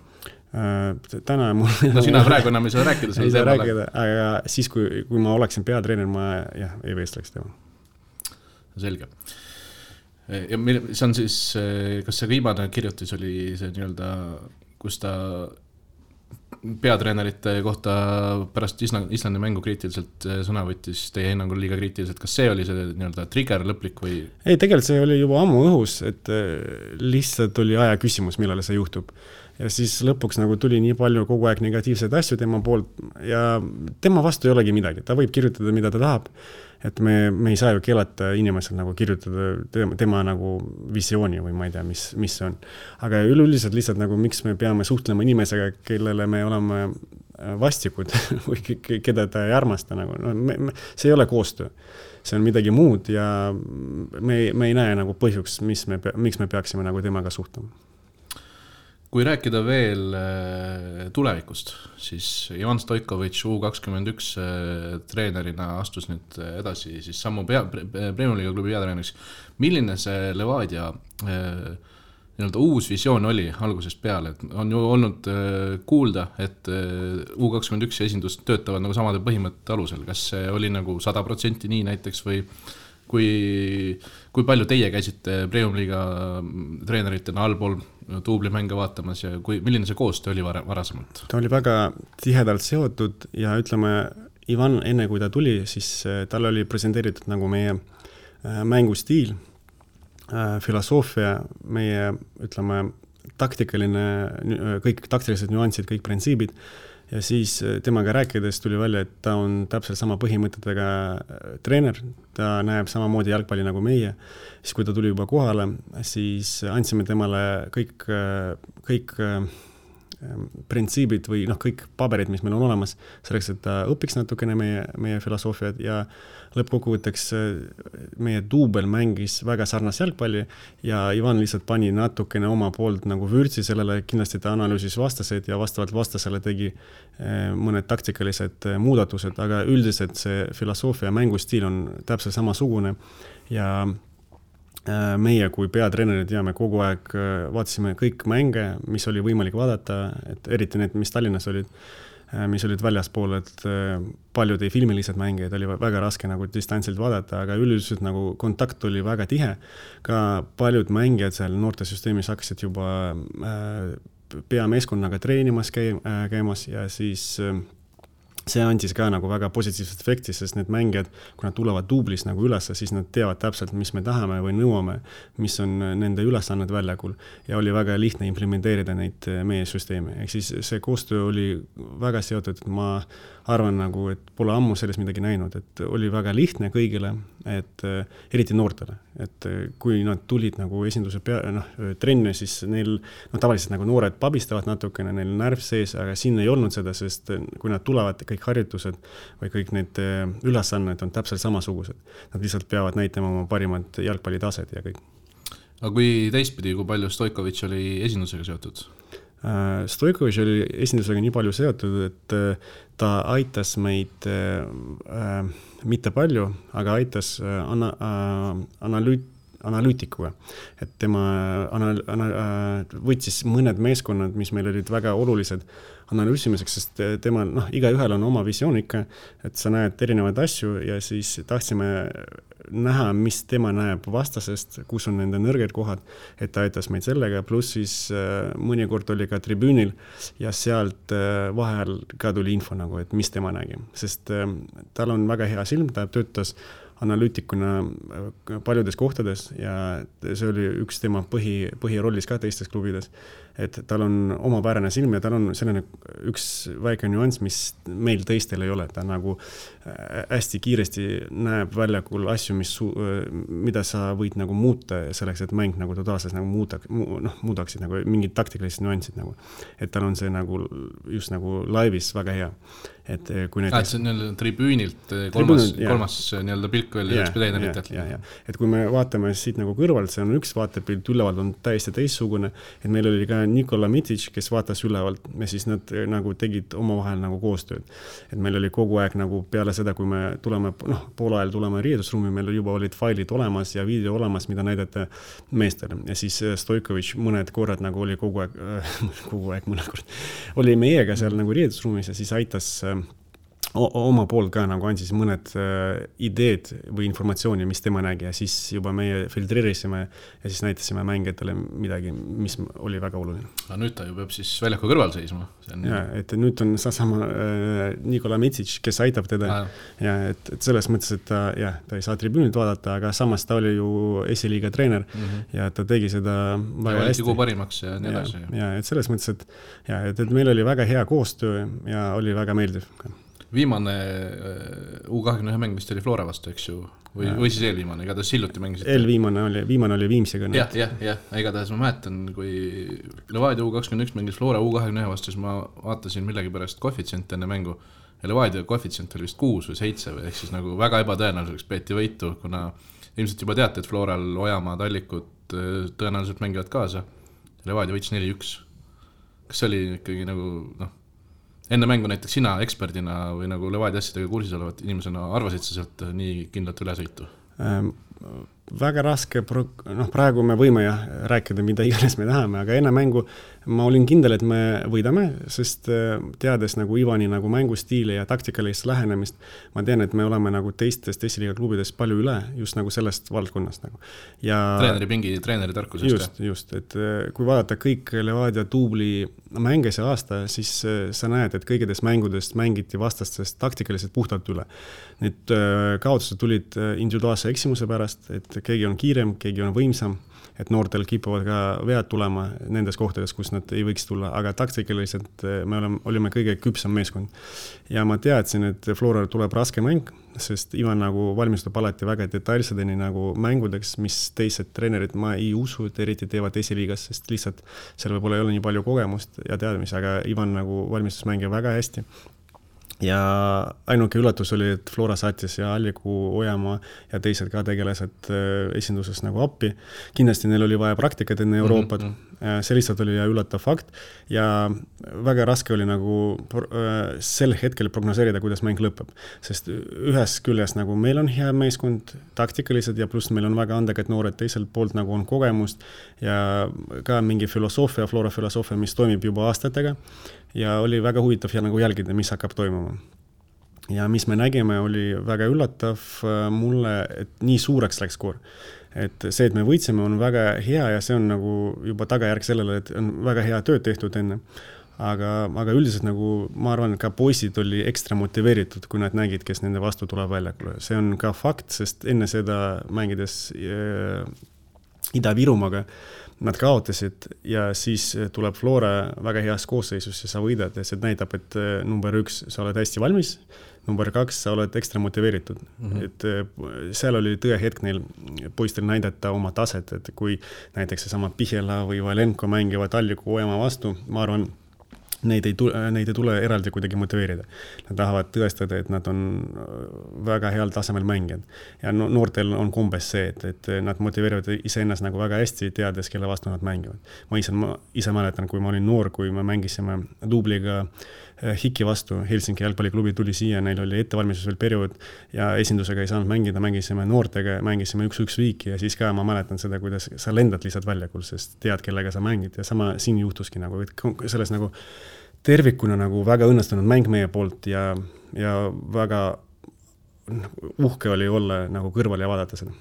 Täna mul... sina praegu enam ei saa rääkida selle teemale. Aga siis, kui ma oleksin peatreener, ma ei vestleks tema. Selge. Ja see on siis, kas see viimane kirjutis oli see nii-öelda, kus ta peatreenerite kohta pärast Islandi mängu kriitiliselt sõna võttis teie hinnangul liiga kriitiliselt, kas see oli see nii-öelda trigger lõplik või? Ei, tegelikult see oli juba ammu õhus, et lihtsalt oli aja küsimus, millal see juhtub. ja siis lõpuks nagu tuli nii palju kogu aeg negatiivseid asju tema poolt ja tema vastu ei olegi midagi, ta võib kirjutada, mida ta tahab, et me ei saa ju keelata inimesel nagu kirjutada tema nagu visiooni või ma ei tea, mis see on. Aga üleüldiselt lihtsalt nagu miks me peame suhtlema inimesega, kellele me oleme vastikud või keda ta ei armasta nagu, no, see ei ole koostöö. See on midagi muud ja me ei näe nagu põhjuks, miks me peaksime nagu temaga suhtlema. Kui rääkida veel tulevikust, siis Ivan Stoikovitš U21 treenerina astus nüüd edasi siis sammu Premium Liiga klubi peatreeneriks. Milline see Levadia uus visioon oli algusest peale? Et on ju olnud kuulda, et U21 esindust töötavad nagu samade põhimõtte alusel. Kas see oli nagu 100% nii näiteks või kui palju teie käisite Premium Liiga treeneritena allpool duublimänge vaatamas ja milline see koostöö oli varasemalt? Ta oli väga tihedalt seotud ja ütleme, Ivan enne kui ta tuli, siis tal oli presenteeritud nagu meie mängustiil, filosoofia, meie ütleme taktikaline, kõik taktilised nüansid, kõik printsiibid ja siis temaga rääkides tuli välja, et ta on täpselt sama põhimõtetega treener, ta näeb samamoodi jalgpalli nagu meie. Siis kui ta tuli juba kohale, siis andsime temale kõik printsiibid või kõik paberid, mis meil on olemas, selleks, et ta õpiks natukene meie filosoofiat ja lõppkokkuvõtteks meie duubel mängis väga sarnas jalgpalli ja Ivan lihtsalt pani natukene oma poolt nagu vürtsi sellele, kindlasti ta analüüsis vastased ja vastavalt vastasele tegi mõned taktikalised muudatused, aga üldiselt see filosoofia ja mängustiil on täpselt samasugune ja meie kui peatreenerid ja me kogu aeg vaatasime kõik mänge, mis oli võimalik vaadata, et eriti need, mis Tallinnas olid, mis olid väljaspool, et paljud ei filmi lihtsalt mänge, et oli väga raske nagu distantsilt vaadata, aga üldiselt nagu kontakt oli väga tihe. Ka paljud mängijad seal noortesüsteemis hakkasid juba peameeskonnaga treenimas käimas ja siis see andis ka nagu väga positiivset efekti, sest need mängijad, kui nad tulevad duublis nagu üles, siis nad teavad täpselt, mis me tahame või nõuame, mis on nende ülesanned väljakul ja oli väga lihtne implementeerida neid meie süsteemi. Ehk siis see koostöö oli väga seotud, et ma arvan nagu, et pole ammu sellest midagi näinud, et oli väga lihtne kõigile, et eriti noortele, et kui nad tulid nagu esinduse trenne, siis neil tavaliselt nagu noored pabistavad natukene, neil närv sees, aga siin ei olnud seda, sest kui nad tulevad, kõik harjutused või kõik need ülesanned on täpselt samasugused. Nad lihtsalt peavad näitama oma parimad jalgpallitaset ja kõik. Aga kui teistpidi, kui palju Stoikovitš oli esindusega seotud? Stoikovitš oli esindusega nii palju seotud, et ta aitas meid mitte palju, aga aitas analüütikuga. Et tema võtsis mõned meeskonnad, mis meil olid väga olulised analüüsimiseks, sest tema, iga ühel on oma visioon ikka, et sa näed erinevaid asju ja siis tahtsime näha, mis tema näeb vastasest, kus on nende nõrged kohad, et ta aitas meid sellega, pluss siis mõnikord oli ka tribüünil ja sealt vahel ka tuli info nagu, et mis tema nägi, sest tal on väga hea silm, ta töötas analüütikuna paljudes kohtades ja see oli üks tema põhirollis ka teistes klubides, et tal on omapärane silm ja tal on selline üks väike nüanss, mis meil teistel ei ole, ta nagu hästi kiiresti näeb väljakul asju, mida sa võid nagu muuta selleks, et mäng nagu totaalselt nagu muudaksid nagu mingid taktikalised nüansid nagu, et tal on see nagu just nagu laivis väga hea. Et kui näiteks... see on tribüünilt kolmas nii-öelda pilk veel treeneritelt. Et kui me vaatame siit nagu kõrvalt, see on üks vaatepilt, ülevalt on täiesti teistsugune, et meil oli ka Nikola Mitic, kes vaatas ülevalt ja siis nad nagu tegid omavahel nagu koostööd. Et meil oli kogu aeg nagu peale seda, kui me tuleme, pool ajal tuleme riietusruumi, meil juba olid failid olemas ja video olemas, mida näidata meestele. Ja siis Stoikovitš mõned korrad nagu oli kogu aeg mõned korrad oli meiega seal nagu riietusruumis ja siis aitas oma poolt ka nagu andis mõned ideed või informatsiooni, mis tema nägi ja siis juba meie filtreerisime ja siis näitasime mängijatele midagi, mis oli väga oluline. Aga nüüd ta ju peab siis väljaku kõrval seisma. Ja, et nüüd on sama Nikola Mitsic, kes aitab teda ja et selles mõttes, et ta ei saa tribüünilt vaadata, aga samas ta oli ju esiliiga treener ja ta tegi seda väga hästi. Tigu parimaks ja nii edasi. Ja, et selles mõttes, et meil oli väga hea koostöö ja oli väga meeldiv ka. Viimane U21 mäng vist oli Flora vastu, eks ju, või siis eelviimane, igatahes hiljuti mängisite. Viimane oli Viimsiga. Jah, igatahes ma mäletan, kui Levadia U21 mängis Flora U21 vastu, siis ma vaatasin millegi pärast koefitsient enne mängu ja Levadia koefitsient oli vist 6 või 7 või ehk siis nagu väga ebatõenäoliseks peeti võitu, kuna ilmselt juba teate, et Floral Ojamaa Tallikud tõenäoliselt mängivad kaasa. Levadia võitis 4-1. Kas see oli ikkagi nagu, enne mängu näiteks sina eksperdina või nagu Levadia asjadega kursis olevat inimesena arvasid sa sealt nii kindlalt ülesõitu? Väga raske, praegu me võime rääkida, mida iganes me tahame, aga enne mängu ma olin kindel, et me võidame, sest teades nagu Ivani nagu mängustiili ja taktikalist lähenemist, ma tean, et me oleme nagu teistest esiliiga klubidest palju üle just nagu sellest valdkonnast nagu. Ja treeneri tarkusest. Just, et kui vaadata kõik Levadia tuubli mänge see aasta, siis sa näed, et kõigedest mängudest mängiti vastastest taktikaliselt puhtalt üle. Need kaotused tulid individuaalse eksimuse pärast, et keegi on kiirem, keegi on võimsam, et noortel kipuvad ka vead tulema nendes kohtades, kus nad ei võiks tulla, aga taktikaliselt me olime kõige küpsam meeskond. Ja ma teadsin, et Floral tuleb raske mäng, sest Ivan nagu valmistub alati väga detailsedeni nagu mängudeks, mis teised treenerid ma ei usu, et eriti teevad esiliigas, sest lihtsalt seal võib-olla ei ole nii palju kogemust ja teadmisi, aga Ivan nagu valmistus mängija väga hästi. Ja ainuke üllatus oli, et Flora saatis ja Alliku Ojamaa ja teised ka tegelased esinduses nagu appi. Kindlasti neil oli vaja praktikat enne Euroopat. See lihtsalt oli üllatav fakt ja väga raske oli nagu sel hetkel prognoseerida, kuidas mäng lõpeb. Sest ühes küljes nagu meil on hea meeskond taktikalised ja pluss meil on väga andekad noored, teiselt poolt nagu on kogemust ja ka mingi filosoofia, Flora filosoofia, mis toimib juba aastatega. Ja oli väga huvitav ja nagu jälgida, mis hakkab toimuma. Ja mis me nägime, oli väga üllatav mulle, et nii suureks läks skoor. Et see, et me võitsime, on väga hea ja see on nagu juba tagajärg sellele, et on väga hea tööd tehtud enne. Aga üldiselt nagu ma arvan, et ka poisid oli ekstra motiveeritud, kui nad nägid, kes nende vastu tuleb väljakule. See on ka fakt, sest enne seda mängides Ida-Virumaaga nad kaotasid ja siis tuleb Flora väga heas koosseisus ja sa võidad ja see näitab, et number 1, sa oled hästi valmis, number 2, sa oled ekstra motiveeritud. Et seal oli tõe hetk neil poistel näidata oma taset, et kui näiteks seesama Pihela või Valenko mängivad Alliku Ojamaa vastu, ma arvan, neid ei tule eraldi kuidagi motiveerida. Nad tahavad tõestada, et nad on väga heal tasemel mängijad. Ja noortel on kombes see, et nad motiveerivad iseennast nagu väga hästi, teades, kelle vastu nad mängivad. Ma ise mäletan, kui ma olin noor, kui me mängisime duubliga Hiki vastu, Helsingi jalgpalliklubi tuli siia, neil oli ettevalmistus veel periood ja esindusega ei saanud mängida, mängisime noortega, mängisime 1-1 viiki ja siis ka ma mäletan seda, kuidas sa lendad lihtsalt väljakul, sest tead, kellega sa mängid ja sama siin juhtuski nagu, et selles nagu tervikuna nagu väga õnnestunud mäng meie poolt ja väga uhke oli olla nagu kõrval ja vaadata seda.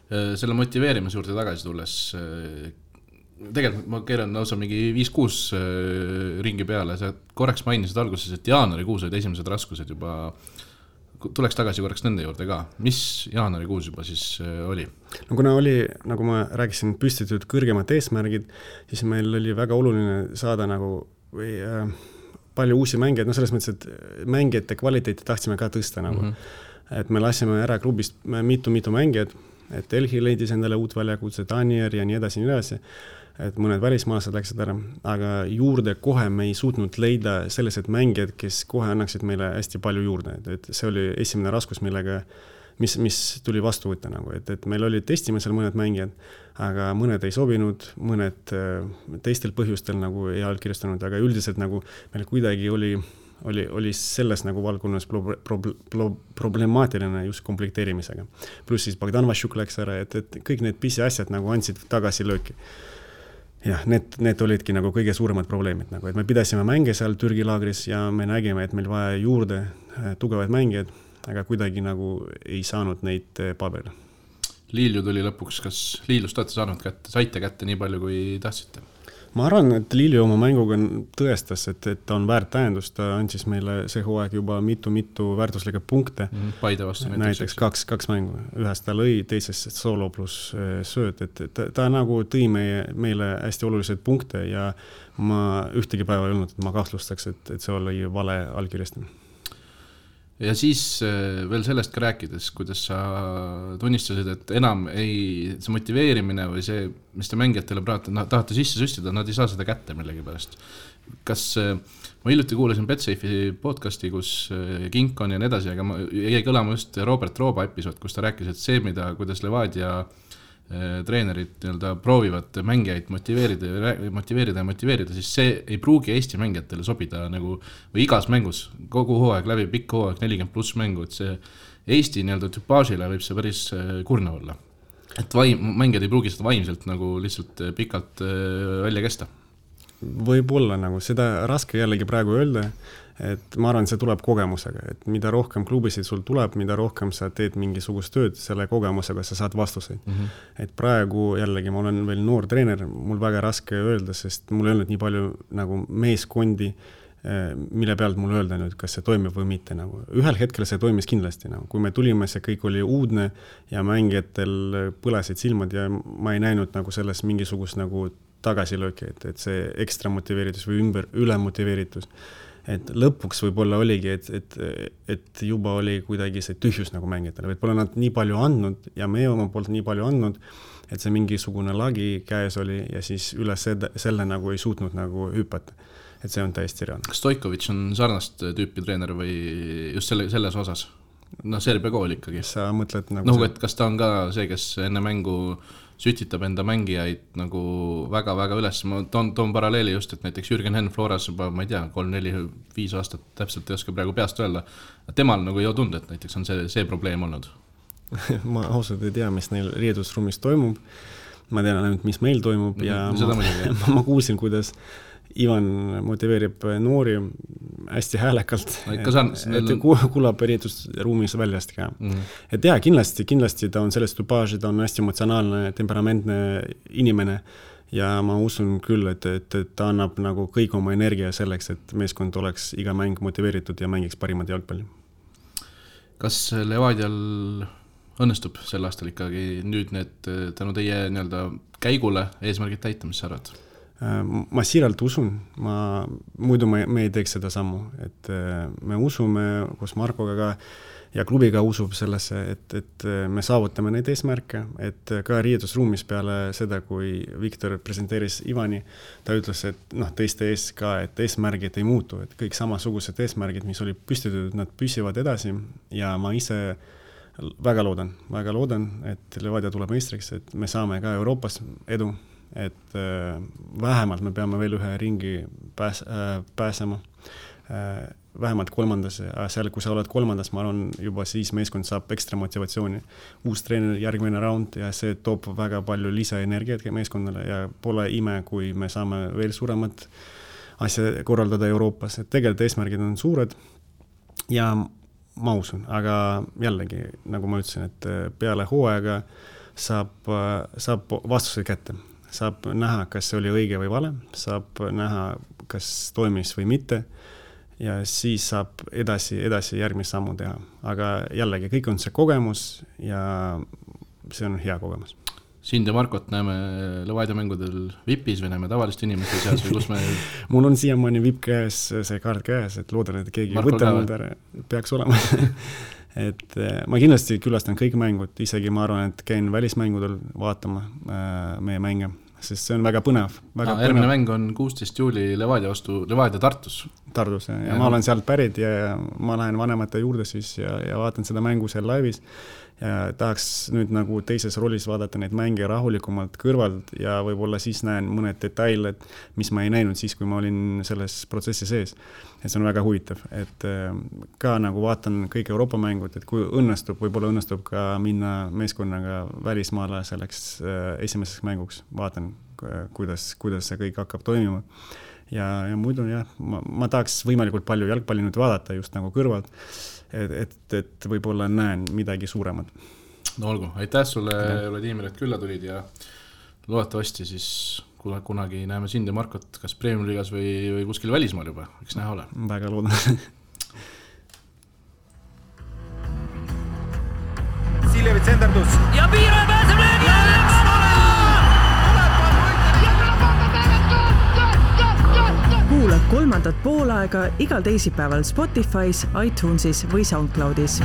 Selle motiveerimise juurde tagasi tulles, tegelikult ma keeran lausa mingi 5-6 ringi peale, sa korraks mainisid alguses, et jaanuarikuus olid esimesed raskused juba, tuleks tagasi korraks nende juurde ka. Mis jaanuarikuus juba siis oli? No kuna oli, nagu ma rääkisin, püstitud kõrgemad eesmärgid, siis meil oli väga oluline saada nagu palju uusi mängijaid, selles mõttes, et mängijate kvaliteeti tahtsime ka tõsta nagu. Et me lasime ära klubist mitu mängijad, et Elhi leidis endale uut väljakutse, Danier ja nii edasi, et mõned välismaalased läksid ära, aga juurde kohe me ei suutnud leida sellised mängijad, kes kohe annaksid meile hästi palju juurde, et see oli esimene raskus, millega mis tuli vastu võtta nagu, et meil oli testimisel mõned mängijad, aga mõned ei sobinud, mõned teistel põhjustel nagu ei allkirjastanud, aga üldiselt nagu meil kuidagi oli selles nagu valdkonnas problemaatiline just komplekteerimisega. Pluss siis Bogdan Vašuk läks ära, et kõik need pisi asjad nagu andsid tagasi lööki. Jah, need olidki nagu kõige suuremad probleemid, nagu, et me pidasime mänge seal Türgi laagris ja me nägime, et meil vaja juurde tugevaid mängijaid, aga kuidagi nagu ei saanud neid paberile. Liilju tuli lõpuks, kas Liiljust olete saite kätte nii palju, kui tahtsite? Ma arvan, et Liilju oma mänguga tõestas, et ta on väärt tähendus, ta andis meile see hooaeg juba mitu väärtuslikke punkte. Paide vastu näiteks kaks mängu, ühest ta lõi, teisest solo pluss sööt, et ta nagu tõi meile hästi olulised punkte ja ma ühtegi päeva ei olnud, et ma kahtlustaks, et see oli vale allkirjastamine. Ja siis veel sellest ka rääkides, kuidas sa tunnistasid, et enam see motiveerimine või see, mis te mängijatele tahate sisse süstida, nad ei saa seda kätte millegi pärast. Kas ma hiljuti kuulasin Betsafe'i podcasti, kus Kinkon ja nii edasi, aga jäi kõlama just Robert Rooba episood, kus ta rääkis, et see, kuidas Levadia treenerid proovivad mängijaid motiveerida, siis see ei pruugi Eesti mängijatele sobida nagu, või igas mängus, kogu hooaeg läbi, pikk hooaeg, 40+ mängu, et see Eesti tüpaažile võib see päris kurna olla. Et mängijad ei pruugi seda vaimselt nagu lihtsalt pikalt välja kesta. Võib-olla nagu seda raske jällegi praegu öelda, et ma arvan, see tuleb kogemusega, et mida rohkem klubisid sul tuleb, mida rohkem sa teed mingisugust tööd, selle kogemusega sa saad vastuseid. Et praegu jällegi ma olen veel noor treener, mul väga raske öelda, sest mul ei olnud nii palju nagu meeskondi, mille pealt mul öelda nüüd, kas see toimib või mitte. Nagu. Ühel hetkel see toimis kindlasti. Nagu. Kui me tulime, see kõik oli uudne ja mängijatel põlesid silmad ja ma ei näinud nagu selles mingisugust nagu tagasilööki, et see ekstra motiveeritus või üle motiveeritus. Et lõpuks võib-olla oligi, et juba oli kuidagi see tühjus nagu mängijatele. Võib-olla nad nii palju andnud ja me oma poolt nii palju andnud, et see mingisugune lagi käes oli ja siis üle selle nagu ei suutnud nagu hüpata. Et see on täiesti reaalne. Kas Stojkovic on sarnast tüüpi treener või just selles osas? Serbia kool ikkagi. Sa mõtled nagu... et kas ta on ka see, kes enne mängu sütitab enda mängijaid nagu väga-väga üles. Ma toon paralleeli just, et näiteks Jürgen Henn Floras juba, ma ei tea, 3, 4, 5 aastat täpselt ei oska praegu peast öelda. Temal nagu ei ole tund, et näiteks on see probleem olnud. Ma ausalt ei tea, mis neil riidusruumis toimub. Ma tean ainult, mis meil toimub ja ma kuulsin, kuidas Ivan motiveerib noori hästi häälekalt, et kuulab riidusruumis väljast ka. Et jah, kindlasti ta on sellest tüpaaži, ta on hästi emotsionaalne, temperamentne inimene ja ma usun küll, et ta annab nagu kõik oma energia selleks, et meeskond oleks iga mäng motiveeritud ja mängiks parimat jalgpalli. Kas Levadial õnnestub sel aastal ikkagi nüüd need tänu teie käigule eesmärgid täita, mis sa arvad? Ma siiralt usun, muidu me ei teeks seda sammu, et me usume koos Markoga ka ja klubiga usub sellesse, et me saavutame neid eesmärke, et ka riidusruumis peale seda, kui Viktor presenteeris Ivani, ta ütles, et teiste ees ka, et eesmärgid ei muutu, et kõik samasugused eesmärgid, mis oli püstitud, nad püsivad edasi ja ma ise väga loodan, et Levadia tuleb meistriks, et me saame ka Euroopas edu, et vähemalt me peame veel ühe ringi pääsema, vähemalt 3. Seal, kui sa oled 3, ma arvan, juba siis meeskond saab ekstra motivatsiooni. Uus treener, järgmine round ja see toob väga palju lisaenergiat meeskonnale ja pole ime, kui me saame veel suuremat asja korraldada Euroopas. Et tegelikult eesmärgid on suured ja ma usun, aga jällegi, nagu ma ütlesin, et peale hooaega saab vastused kätte. Saab näha, kas see oli õige või vale, saab näha, kas toimis või mitte ja siis saab edasi järgmist sammu teha. Aga jällegi, kõik on see kogemus ja see on hea kogemus. Sind ja Markot näeme Levadia mängudel VIPis või näeme tavalist inimeste seas või kus me... Mul on siiamaani VIP käes, see kaart käes, et loodan, et keegi võtanud peaks olema. Et ma kindlasti külastan kõik mängud, isegi ma arvan, et käin välismängudel vaatama meie mänge, sest see on väga põnev. Järgmine mäng on 16. juuli Levadia Tartus. Tartus, ja ma olen sealt pärit ja ma lähen vanemate juurde siis ja vaatan seda mängu seal laivis ja tahaks nüüd nagu teises rollis vaadata neid mänge rahulikumalt kõrvalt ja võib-olla siis näen mõned detailed, mis ma ei näinud siis, kui ma olin selles protsessi sees. Et see on väga huvitav, et ka nagu vaatan kõik Euroopa mängud, et kui võib-olla õnnestub ka minna meeskonnaga välismaale selleks esimeseks mänguks, vaatan, kuidas see kõik hakkab toimima. ja muidu jah, ma tahaks võimalikult palju jalgpalli nüüd vaadata just nagu kõrvalt, et võib-olla näen midagi suuremat. No olgu, aitäh sulle, Vladimir, et külla tulid ja loodetavasti siis kunagi näeme sind ja Markot kas Premium Liigas või kuskil välismaal juba, eks näha ole. Väga loodan. Siljevi tsenderdus. Ja Piira pääseb löögi alla! Kuula kolmandat poolaega igal teisipäeval Spotify's, iTunesis või SoundCloudis.